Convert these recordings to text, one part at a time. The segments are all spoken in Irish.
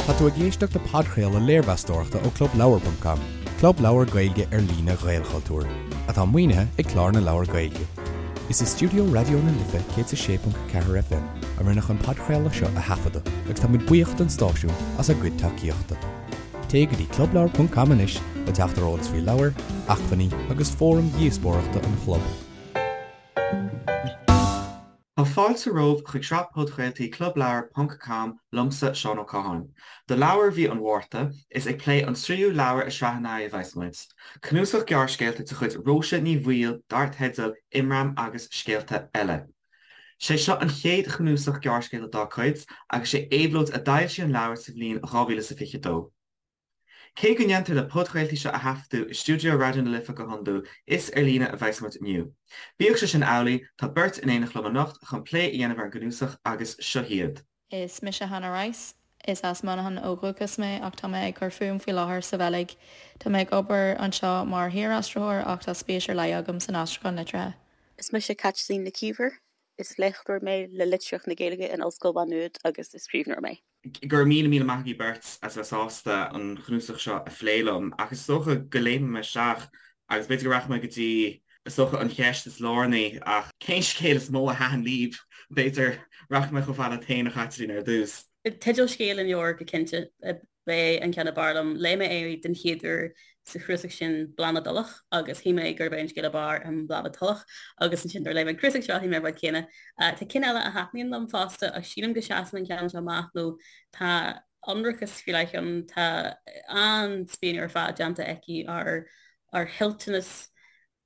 Tá tú ag éisteacht le podchraoladh léirmheastóireachta ó ClubLeabhar.com, club leabhar Gaeilge ar líne Ghaelchultúir, atá maoinithe ag Clár na Leabhar Gaeilge. Is i stiúideo Raidió na Life 106.4 FM a rinneadh an podchraoladh seo a thaifeadadh agus tá muid buíoch don stáisiún as a gcuid tacaíochta. Téigh go dtí clubleabhar.com anois le teacht ar eolas faoi leabhair, acmhainní agus fóraim dhíospóireachta an chlub. Tá fáilte romhaibh chuig sraith podchraoltaí Clubleabhar ponc com liomsa, Seán Ó Catháin. Do leabhar mhí an Mhárta, is ag plé an tríú leabhar i sraith an Earraigh a bheas muid. Cnuasach gearrscéalta de chuid Róise Ní Bhaoill dar teideal Imram agus Scéalta Eile. Sé seo an chéad chnuasach gearrscéalta dá cuid agus sé Éabhlóid a d'fhoilsigh an leabhar sa bhliain 2022. Cé go ndéantar na podchraoltaí seo a thaifeadadh i stiúideo Raidió na Life go hiondúil, is ar líne a bheas muid inniu. Bíodh sé sin amhlaidh, tá beirt in éineacht liom anocht chun plé a dhéanamh ar an gcnuasach agus seo hiad. Is mise Hannah Rice. Is as Manchain ó dhúchas mé ach tá mé ag cur fúm faoi láthair sa Bheilg. Tá mé ag obair anseo mar shaoraistritheoir ach tá spéis ar leith agam san aistriúchán liteartha. Is mise Caitlín Nic Íomhair. Is léachtóir mé le Litríocht na Gaeilge in Ollscoil Mhá Nuad agus is scríbhneoir mé. Go raibh míle míle maith agaibh beirt as bheith sásta an chnuasach seo a phlé liom, ach is dócha go léimfidh mé isteach agus b'fhéidir go rachaidh mé go dtí, is dócha, an cheist is lárnaí, ach cén scéal is mó a thaitin libh? B'fhéidir rachaidh mé chomh fada leat féin, a Chaitlín, ar dtús. Teideal scéil an leabhair go cinnte. B'é an ceann ab fhearr liom. Léigh mé é den chéad uair sa chnuasach sin Bláth na dTulach agus shíl mé gurb é an scéal ab fhearr in Bláth na dTulach agus ansin nuair a léigh mé an cnuasach seo shíl mé an rud céanna. Tá cinn eile a thaitníonn liom fosta ach sílim go seasann an ceann seo amach nó tá ionracas faoi leith ann, tá an-spíonadh ar fad déanta aici ar ar thoilteanas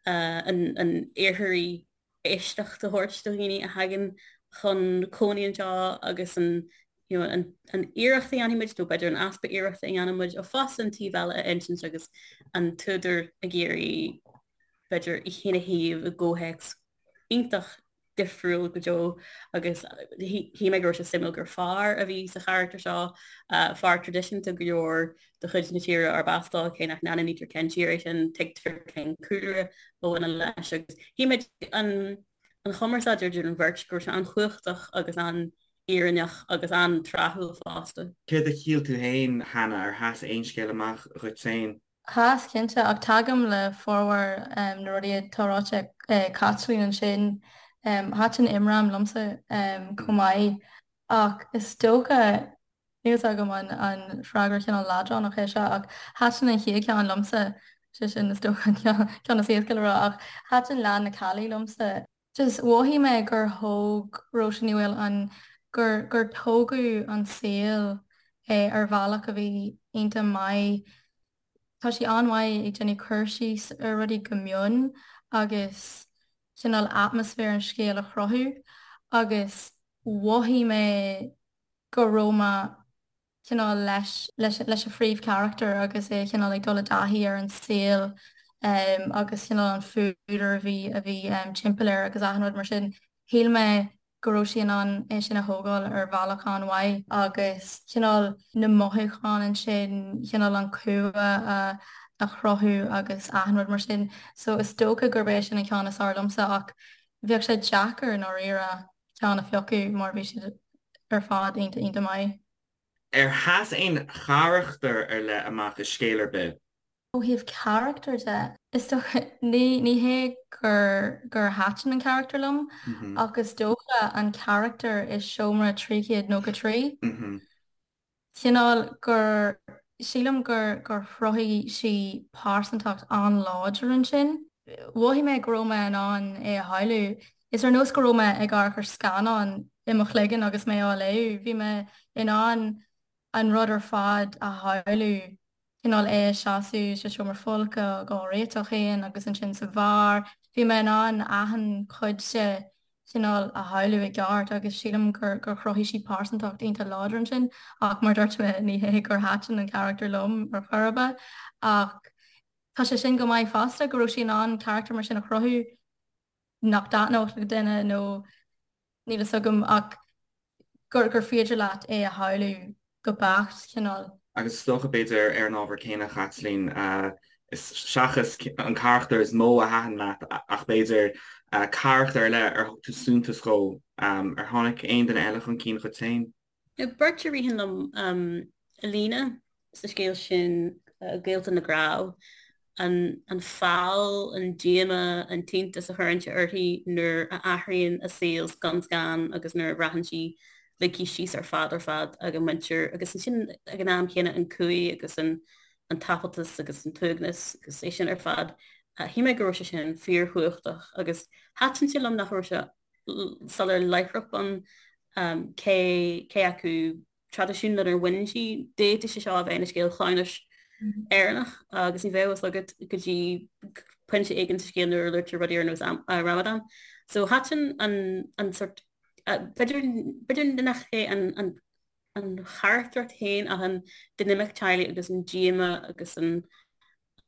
an an iartharaigh éisteacht a thabhairt do dhaoine a thagann chun cónaí anseo agus an you know, an, an iarracht a dhéanfaidh muid, nó b'fhéidir an easpa iarrachta a dhéanann muid, ach fosta an taobh eile a insint agus an t-údar ag iarraidh b'fhéidir í féin a shuíomh i gcomhthéacs iontach difriúil go deo agus shíl mé go raibh sé suimiúil gur fear a bhí sa charachtar seo, fear traidisiúnta go leor de chuid na tíre arb as dó, cé nach n-ainmnítear cén tír é sin, tuigtear cén cúlra a bhaineann leis agus shíl mé an an chumarsáid idir an bheirt go raibh sé an-chumhachtach agus an-fhírinneach agus an-tráthúil fosta. Céard a shíl tú féin, Hannah, ar sheas aon scéal amach dhuit féin? Sheas, cinnte, ach tagaim le formhór na rudaí atá ráite ag Caitlín ansin. Thaitin Imram liomsa chomh maith ach is dócha, Níl 's agam an freagra cineál leadránach é seo ach thaitin an chéad cheann liomsa, sé sin is dócha an ceann is éasca le rá ach thaitin Leath na Caillí liomsa. Just mhothaigh mé gur thóg Róise Ní Bhaoill an, gur, gur tógadh an saol ar bhealach a bhí iontach maith. Tá sí an-mhaith ag déanamh cur síos ar rudaí go mion agus cineál atmaisféar an scéil a chruthú agus mhothaigh mé go raibh mé cineál leis, leis, leis an phríomhcharachtar agus é cineál ag dul i dtaithí ar an saol agus cineál an fuadar a bhí, a bhí timpeall air agus achan rud mar sin. Shíl mé go raibh sí in ann é sin a thógáil ar bhealach an-mhaith agus cineál na mothúcháin ansin, cineál an cumha a, a chruthú agus achan rud mar sin. So is dócha gurb é sin an ceann is fearr liomsa ach bheadh sé deacair i ndáiríre. ceann a phiocadh mar bhí siad ar fad iontach iontach maith. Ar sheas aon charachtar ar leith amach i scéal ar bith? Ó thaobh carachtar de, is dócha, ní ní hé gur gur thaitin an carachtar liom ach is dócha an carachtar i seomra 393. Cineál gur, sílim gur, gur chruthaigh sí pearsantacht an-láidir ansin. Mhothaigh mé go raibh mé in ann é a shamhlú. Is ar nós go raibh mé ag amharc ar scannán i mo chloigeann agus mé á léamh. Bhí mé in ann an rud ar fad a shamhlú. cineál é ag seasamh sa seomra folctha ag á réiteach féin agus ansin sa bheár. Bhí mé in ann achan chuid de cineál a shamhlú i gceart agus sílim gur gur chruthaigh sí pearsantacht iontach láidir ansin ach mar dúirt mé ní hé gur thaitin an carachtar liom ar chor ar bith ach tá sé sin go maith fosta go raibh sí in ann carachtar mar sin a chruthú nach dtaitneodh le duine nó níl fhios agam ach gur gur féidir leat é a shamhlú go beacht, cineál. Agus is dócha, b'fhéidir, ar an ábhar céanna, a Chaitlín, seachas an carachtar is mó a thaitin leat ach b'fhéidir carachtar ar leith ar thug tú suntas dhó, ar tháinig aon duine eile chun cinn dhuit féin? Beirt a ritheann liom. Alina sa scéal sin, Gaolta na gCnámh, an feall, an díomá, an t-iontas a chuireann sé uirthi nuair a athraíonn a saol scun scan agus nuair a bhraitheann sí ligthe síos ar fad ar fad ag a muintir agus ansin ag an am chéanna an cumhaidh agus an an taifealtas agus an t-uaigneas agus é sin ar fad. Shíl mé go raibh sé sin fíorchumhachtach agus thaitin sé liom nach raibh sé soiléir láithreach bonn cé cé acu traidisiún lenar bhain sí, d'fhéadfadh sé seo a bheith ina scéal cleamhnais Éireannach agus ní bheadh a fhios agat go dtí pointe éigin sa scéal nuair a luaitear rudaí ar nós Ramadan. So thaitin an an sort b'fhéidir b'fhéidir nach é an an an charachtracht féin ach an dinimic teaghlaigh agus an díomá agus an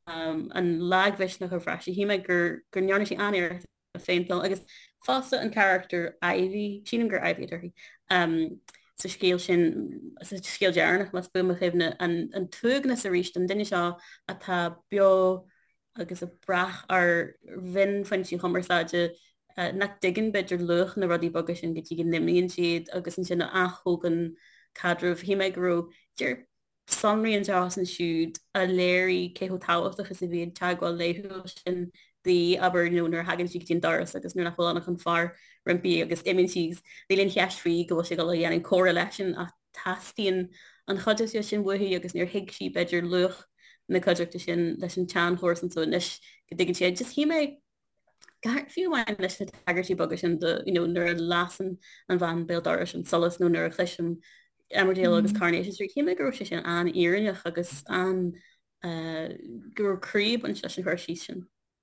an lagmhisneach a bhraith sí. Shíl mé gur go ndearna sí an-iarracht a phéinteáil agus fosta an carachtar Ivy, sílim gur Ivy atá uirthi, um, sa scéal sin, sa scéal deireanach más buan mo chuimhne, an, an t-uaigneas arís an duine seo atá beo agus ag brath ar mhionphointí cumarsáide uh, nach dtuigeann b'fhéidir luach na rudaí beaga sin go dtí go n-imíonn siad agus ansin a ath-thógann caidreamh. Shíl mé go raibh deir sonraí anseo is ansiúd a léirigh cé chomh tábhachtach is a bhí an teagmháil laethúil sin di, abair, nó nuair a thagann sí go dtí an doras agus nuair nach bhfuil ann ach an fear roimpi agus imíonn sí agus níl aon cheist faoi go bhfuil sí ag dul a dhéanamh comhrá leisean ach teastaíonn an chuideachta sin uaithi agus níor thuig sí b'fhéidir luach na cuideachta sin leis an tseanchomharsan so anois go dtuigeann sí é. Just shíl mé Fiú amháin leis na tagairtí beaga sin do you know nuair a lasann an bhean béal dorais an solas nó nuair a chloisim Emmerdale agus Coronation Street, shíl mé go raibh sé sin an-fhírinneach agus an go raibh croí ag baint leis an chur síos sin.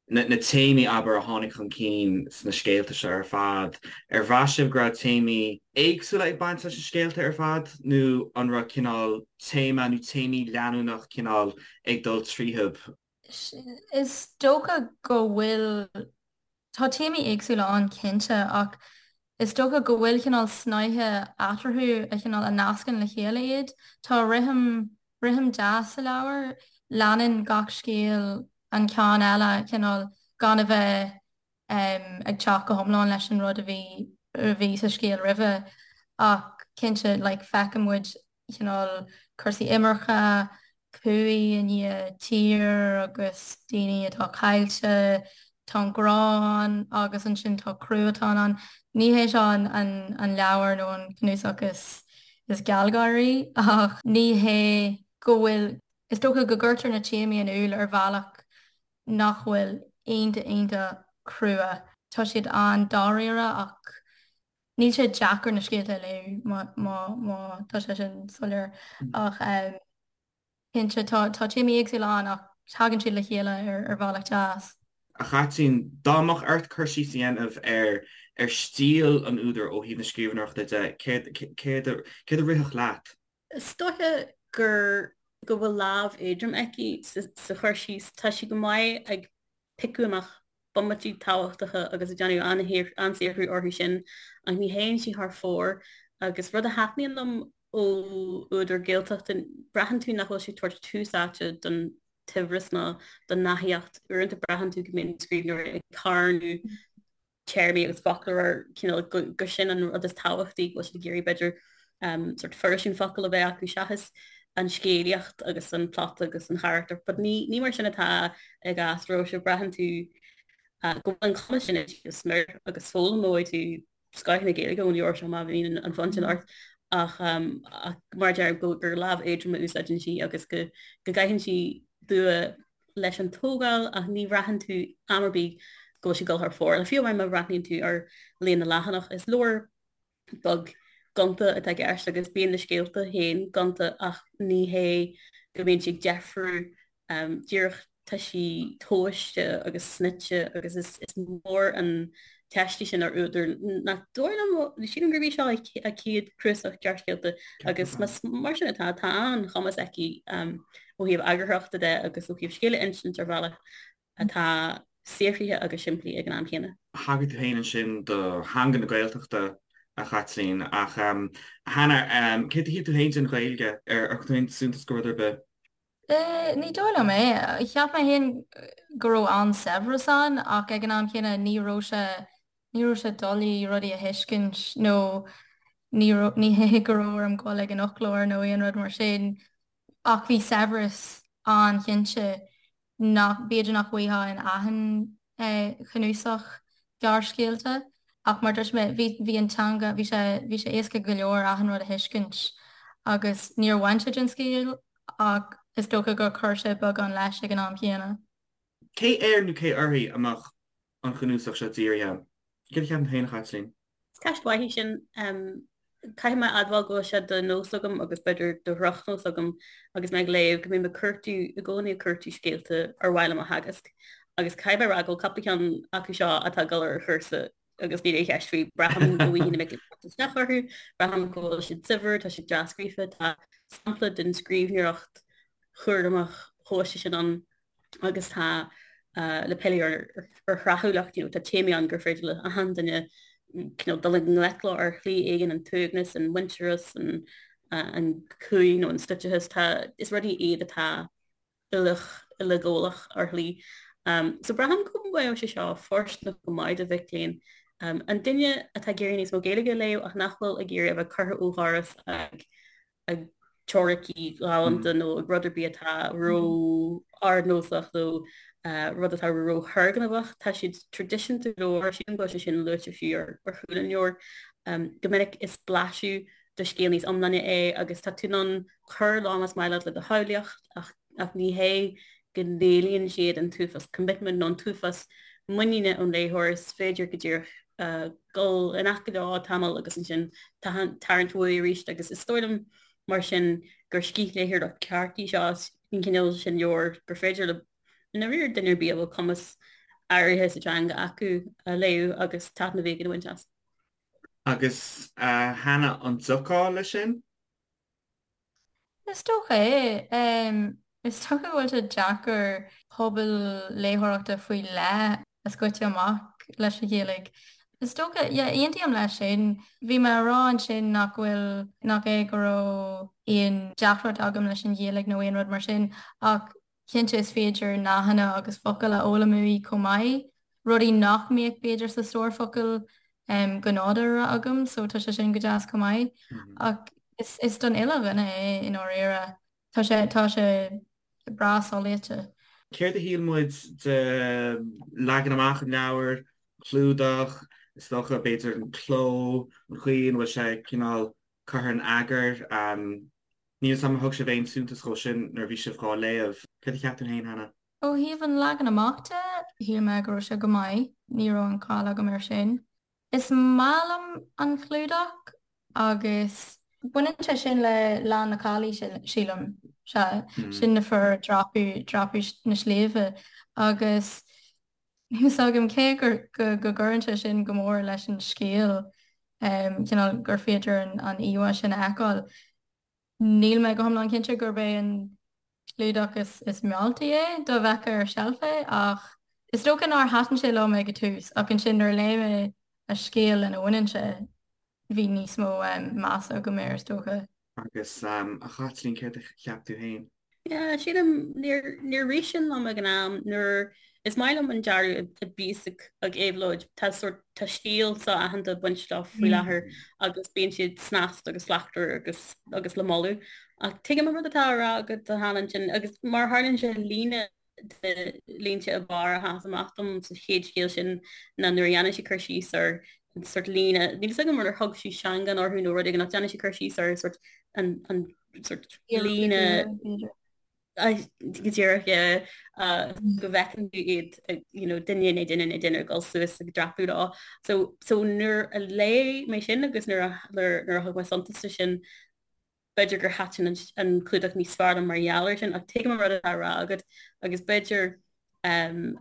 Na téamaí, abair, a tháinig chun cinn sna scéalta seo ar fad, ar bhraith sibh go raibh téamaí éagsúla ag baint leis na scéalta ar fad nó an raibh cineál téama nó téamaí leanúnach cineál ag dul tríothu? Is dócha go bhfuil, tá téamaí éagsúla ann cinnte ach is dócha go bhfuil cineál snáithe eatarthu a chineál a nascann le chéile iad. Tá rithim, rithim deas sa leabhar, leanann gach scéal an ceann eile cineál gan a bheith ag teacht go hiomlán leis an rud a bhí a bhí sa scéal roimhe ach cinnte like feiceann muid cineál cúrsaí imirce, cumhaidh i ndiaidh tír agus daoine atá caillte, tá an grá ann agus ansin tá cruatan ann. Ní hé seo an an an leabhar nó an cnuasach is is gealgháirí ach ní hé go bhfuil, is dócha go gcuirtear na téamaí in iúl ar bhealach nach bhfuil iontach iontach crua. Tá siad an-dáiríre ach níl sé deacair na scéalta a léamh má má má tá sé sin soiléir. Ach cinnte tá tá téamaí éagsúla ann ach tagann siad le chéile ar ar bhealach deas. A Chaitlín, dá mbeadh ort cur síos a dhéanamh ar ar stíl an údair ó thaobh na scríbhneoireachta de, céard céard a céard a rithfeadh leat? Is dóiche gur go bhfuil lámh éadrom aici sa chur síos. Tá sí go maith ag piocadh amach bomaití tábhachtacha agus ag déanamh an-saothrú orthu sin ach ní théann sí thar fóir agus rud a thaitníonn liom ó údar Gaeltachta, braitheann tú nach bhfuil sí ag tabhairt tús áite don tsaibhreas ná don nathaíocht. Uaireanta braitheann tú go mbíonn scríbhneoirí ag carnadh téarmaí agus foclóir ar cineál gur sin an rud is tábhachtaí, go bhfuil siad ag iarraidh b'fhéidir sort fairsing focal a bheith acu seachas an scéalaíocht agus an plot agus an charachtar. But ní, ní mar sin atá i gcás Róise, braitheann tú go bhfuil an cumas sin aici go smior agus foghlaimeoidh tú scoth na Gaeilge ón leabhar seo má bhíonn an fonn sin ort ach, ach mar a deirim go gur lámh éadrom a úsáideann sí agus go go gcaitheann sí dua leis an tógáil ach ní bhraitheann tú am ar bith go bhfuil sí ag dul thar fóir. Fiú amháin má bhreathnaíonn tú ar líon na leathanach, is leabhar beag gonta atá i gceist agus bíonn na scéalta féin gonta ach ní hé go mbíonn sí ag deifriú díreach tá sí tomhaiste agus snoite agus is mór an teist í sin ar údar nach dóigh liom, sílim gurb í seo a céad cnuasach gearrscéalta agus más mar sin atá, tá an-chumas aici ó thaobh eagarthóireachta de agus ó thaobh scéal a insint ar bhealach atá saothraithe agus simplí ag an am chéanna. Thagair tú féin ansin do theanga na Gaeltachta, a Chaitlín, ach a Hannah, céard a shíl tú féin den Ghaeilge? Ar thug tú féin suntas do rud ar bith? Ní dóigh liom é. Cheap mé féin go raibh an-saibhreas ann ach ag an am chéanna ní raibh sé, ní raibh sé doiligh rudaí a thuiscint nó ní, ní hé go raibh orm dul ag an fhoclóir nó aon rud mar sin. Ach bhí saibhreas an-chinnte nach, b'fhéidir nach bhfaighfeá in achan chnuasach gearrscéalta ach mar dúirt mé, bhí, bhí an teanga, bhí sé, bhí sé éasca go leor achan rud a thuiscint agus níor bhain sé den scéal ach is dócha gur chuir sé beagán leis ag an am chéanna. Cé air nó cé uirthi a mbeadh an chnuasach seo dírithe? Céard a cheapann tú féin, a Chaitlín? Is ceist mhaith í sin. Caithfidh mé a admháil go bhfuil sé de nós agam agus b'fhéidir de dhrochnós agam agus mé ag léamh go mbím ag cuartú, i gcónaí ag cuartú scéalta ar mhaith liom a theagasc. Agus caithfidh mé a rá go bhfuil cúpla ceann acu seo atá ag dul ar chúrsa agus níl aon cheist faoi. Braithim go bhfaighidh na mic léinn teacht isteach orthu, braithim go bhfuil siad saibhir, tá siad dea-scríofa, tá sampla den scríbhneoireacht chúramach thomhaiste sin ann. agus tá le pilleadh ar thráthúlacht, you know, tá téamaí ann gur féidir le achan duine cineál dul i ngleic leo ar shlí éigin, an t-uaigneas, an muintearas, an an cumha nó an stoiteachas, tá, is rudaí iad atá uileach, uileghabhálach ar shlí. Um, so braithim go mbeadh sé seo fóirsteanach go maith do mhic léinn. Um, an duine atá ag iarraidh níos mó Gaeilge a léamh ach nach bhfuil ag iarraidh a bheith curtha ó dhoras ag ag teoiricí galánta nó ag rud ar bith atá ró-ardnósach nó rud atá ró-thurgnamhach. Tá siad traidisiúnta go leor, sílim go bhfuil sé sin luaite fiú ar chúl an leabhair. Go minic is blaiseadh de scéal níos iomláine é agus tá tú in ann cur leo más maith leat le do shamhlaíocht ach ach ní hé go n-éilíonn siad an t-uafás commitment nó an t-uafás muiníne ón léitheoir, is féidir go díreach dul in aice leo tamall agus ansin tarraingt uaidh arís agus is dóigh liom mar sin gur scíthléitheoireacht ceart í seo, an cineál sin leabhar gur féidir le i ndáiríre duine ar bith a bhfuil cumas áirithe sa teanga acu a léamh agus taitneamh éigin a bhaint as. Agus a Hannah, an dtiocfá leis sin? Is dócha é. Is dócha go bhfuil sé deacair pobal léitheoireachta faoi leith a scoiteadh amach leis an Ghaeilge. Is dócha, yeah, aontaím leis sin. Bhí mé a rá ansin nach bhfuil, nach é go raibh aon deacracht agam leis an Ghaeilge nó aon rud mar sin ach Cinnte is féidir nathanna agus focail a fhoghlaim uaidh chomh maith, rudaí nach mbeadh b'fhéidir sa stór focal go nádúrtha agam, so tá sé sin go deas chomh maith. Ach is is don uile dhuine é i ndáiríre. Tá sé tá sé breá soléite. Céard a shíl muid de leagan amach an leabhair, clúdach, is dócha, b'fhéidir an cló, an chaoi ina bhfuil sé cineál curtha in eagar? Níl 'fhios a'm ar thug sibh aon suntas dhó sin nuair a bhí sibh dhá léamh. Céard a cheap tú féin, Hannah? Ó thaobh an leagan amach de, shíl mé go raibh sé go maith, ní raibh aon chall agam air sin. Is maith liom an clúdach agus baineann sé sin le Lá na Caillí, sílim, sea, sin na fir ag dreapadh, dreapadh na sléibhe agus níl 'fhios agam cé go go gcuireann sé sin go mór leis an scéal, cineál gur féidir an íomhá sin a fheiceáil. Níl mé go hiomlán cinnte gurb é an clúdach is mealltaí é dá bhfeicfeá ar seilf é ach is dócha nár thaitin sé liom ag an tús ach ansin nuair a léigh mé an scéal lena bhaineann sé bhí níos mó measa agam air is dócha. Agus a Chaitlín, céard a cheap tú féin? Yeah, sílim, níor, níor rith sin liom ag an am nuair, is maith liom an dearadh a bhíos ag, ag Éabhlóid, tá sórt, tá stíl so-aitheanta ag baint leo faoi láthair agus bíonn siad snasta agus slachtmhar agus, agus le moladh. Ach tuigim an rud atá á rá agat a Hannah ansin agus mar a tharlaíonn sé líne de línte ab fhearr a sheas amach dom sa chéad scéal sin ná nuair a dhéanann sí cur síos ar an sórt líne, níl 'fhios agam ar thug sí seangán orthu nó rud éigin ach déanann sí cur síos ar sórt an, an sórt líne go díreach go bhfeiceann tú iad you know, duine i ndiaidh duine i ndiaidh duine ag dul suas ag dreapadh leo. So, so nuair a léigh mé sin agus nuair a, nuair a thug mé suntas de sin, b'fhéidir gur thaitin an, an clúdach níos fearr liom mar gheall air sin, ach tuigim an rud atá á rá agat agus b'fhéidir um,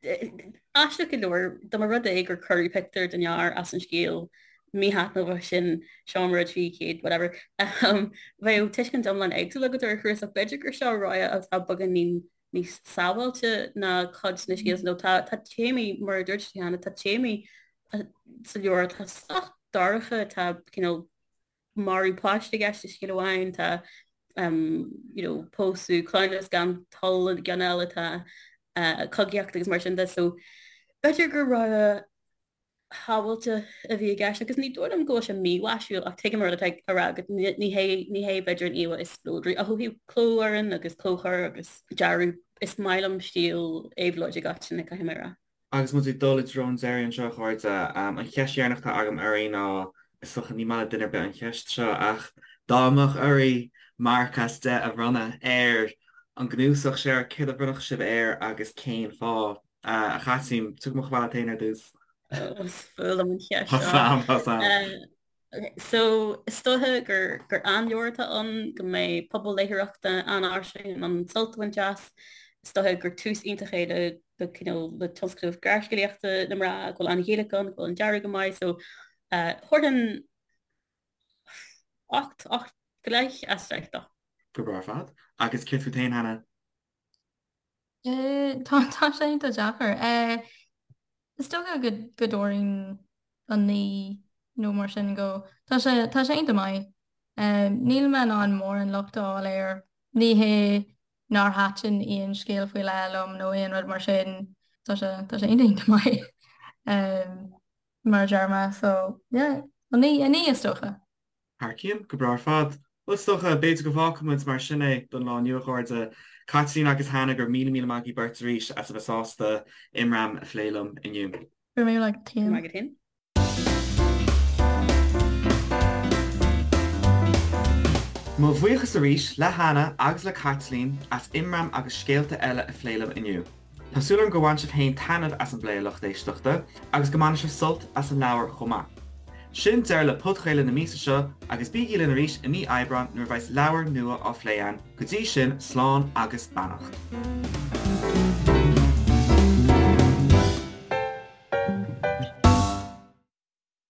Aisteach go leor, dá mba rud é gur cuireadh pictiúr den fhear as an scéal míthaitneamhach sin, Seomra 300, whatever, bheadh tuiscint iomlán éagsúil agat ar an chnuasach. B'fhéidir gur seo rogha atá beagáinín níos sábháilte ná cuid de na scéalta nó tá tá téamaí, mar a dúirt tú cheana, tá téamaí sa leabhar atá sách dorcha, tá cineál marú páiste i gceist i scéal amháin, tá you know, pósadh, cleamhnas gan toil i gceann eile, tá cogaíocht agus mar sin de. So b'fhéidir gur rogha shamhailteach a bhí i gceist agus ní dóigh liom go bhfuil sé mímhaisiúil ach tuigim an rud atá á rá agat, ní hé ní hé b'fhéidir an íomhá is spleodraí ach ó thaobh clófhoireann agus clóchur agus dearadh is maith liom stíl Éabhlóide Goitse, caithfidh mé a rá. Agus muid ag dul i dtreo an deiridh anseo, a chairde, an cheist dheireanach atá agam oraibh ná, is dócha ní maith le duine ar bith an cheist seo, ach dá mbeadh oraibh marc as 10 a bhronnadh ar an gcnuasach seo, céard a bhronnfadh sibh air agus cén fáth? A Chaitlín, tiocfaidh mé chomh fada leat féin ar dtús. Is fuath liom an cheist seo. Tá 's a'm. So, is dóiche gur gur an-leabhar atá ann, go mbeidh pobal léitheoireachta an-fhairsing in ann sult a bhaint as. Is dóiche gur tús iontach é le le cineál le tionscnamh gearrscéalaíochta na mná, go bhfuil an-Ghaeilge ann, go bhfuil an dearadh go maith. So, thabharfainn 8, 8 go leith as 10 dó. Go breá ar fad. Agus céard fút féin, Hannah? Tá tá sé iontach deacair. Is dócha go go dtabharfainn 9 nó mar sin dó. Tá sé tá sé iontach maith. Níl mé in ann mórán locht a fháil air. Ní hé nár thaitin aon scéal faoi leith liom nó aon rud mar sin. Tá sé tá sé iontach iontach maith mar a deir mé. So yeah, 9 9 is dócha. Thar cionn, go breá ar fad. Bhuel, is dócha, b'fhéidir go bhfágfaidh muid mar sin é don lá inniu, a chairde. Caitlín agus Hannah, go raibh míle míle maith agaibh beirt arís as a bheith sásta Imram a phlé liom inniu. Go raibh míle maith agat Go raibh maith agat féin. Mo bhuíochas arís le Hannah agus le Caitlín as Imram agus scéalta eile a phlé liom inniu. Tá súil agam gur bhain sibh féin taitneamh as an bplé a lucht éisteachta agus go mbainfidh sibh sult as an leabhar chomh maith. Sin deireadh le podchraoladh na míosa seo agus bígí linn arís i mí Aibreáin nuair a bheas leabhar nua á phlé againn, go dtí sin slán agus beannacht.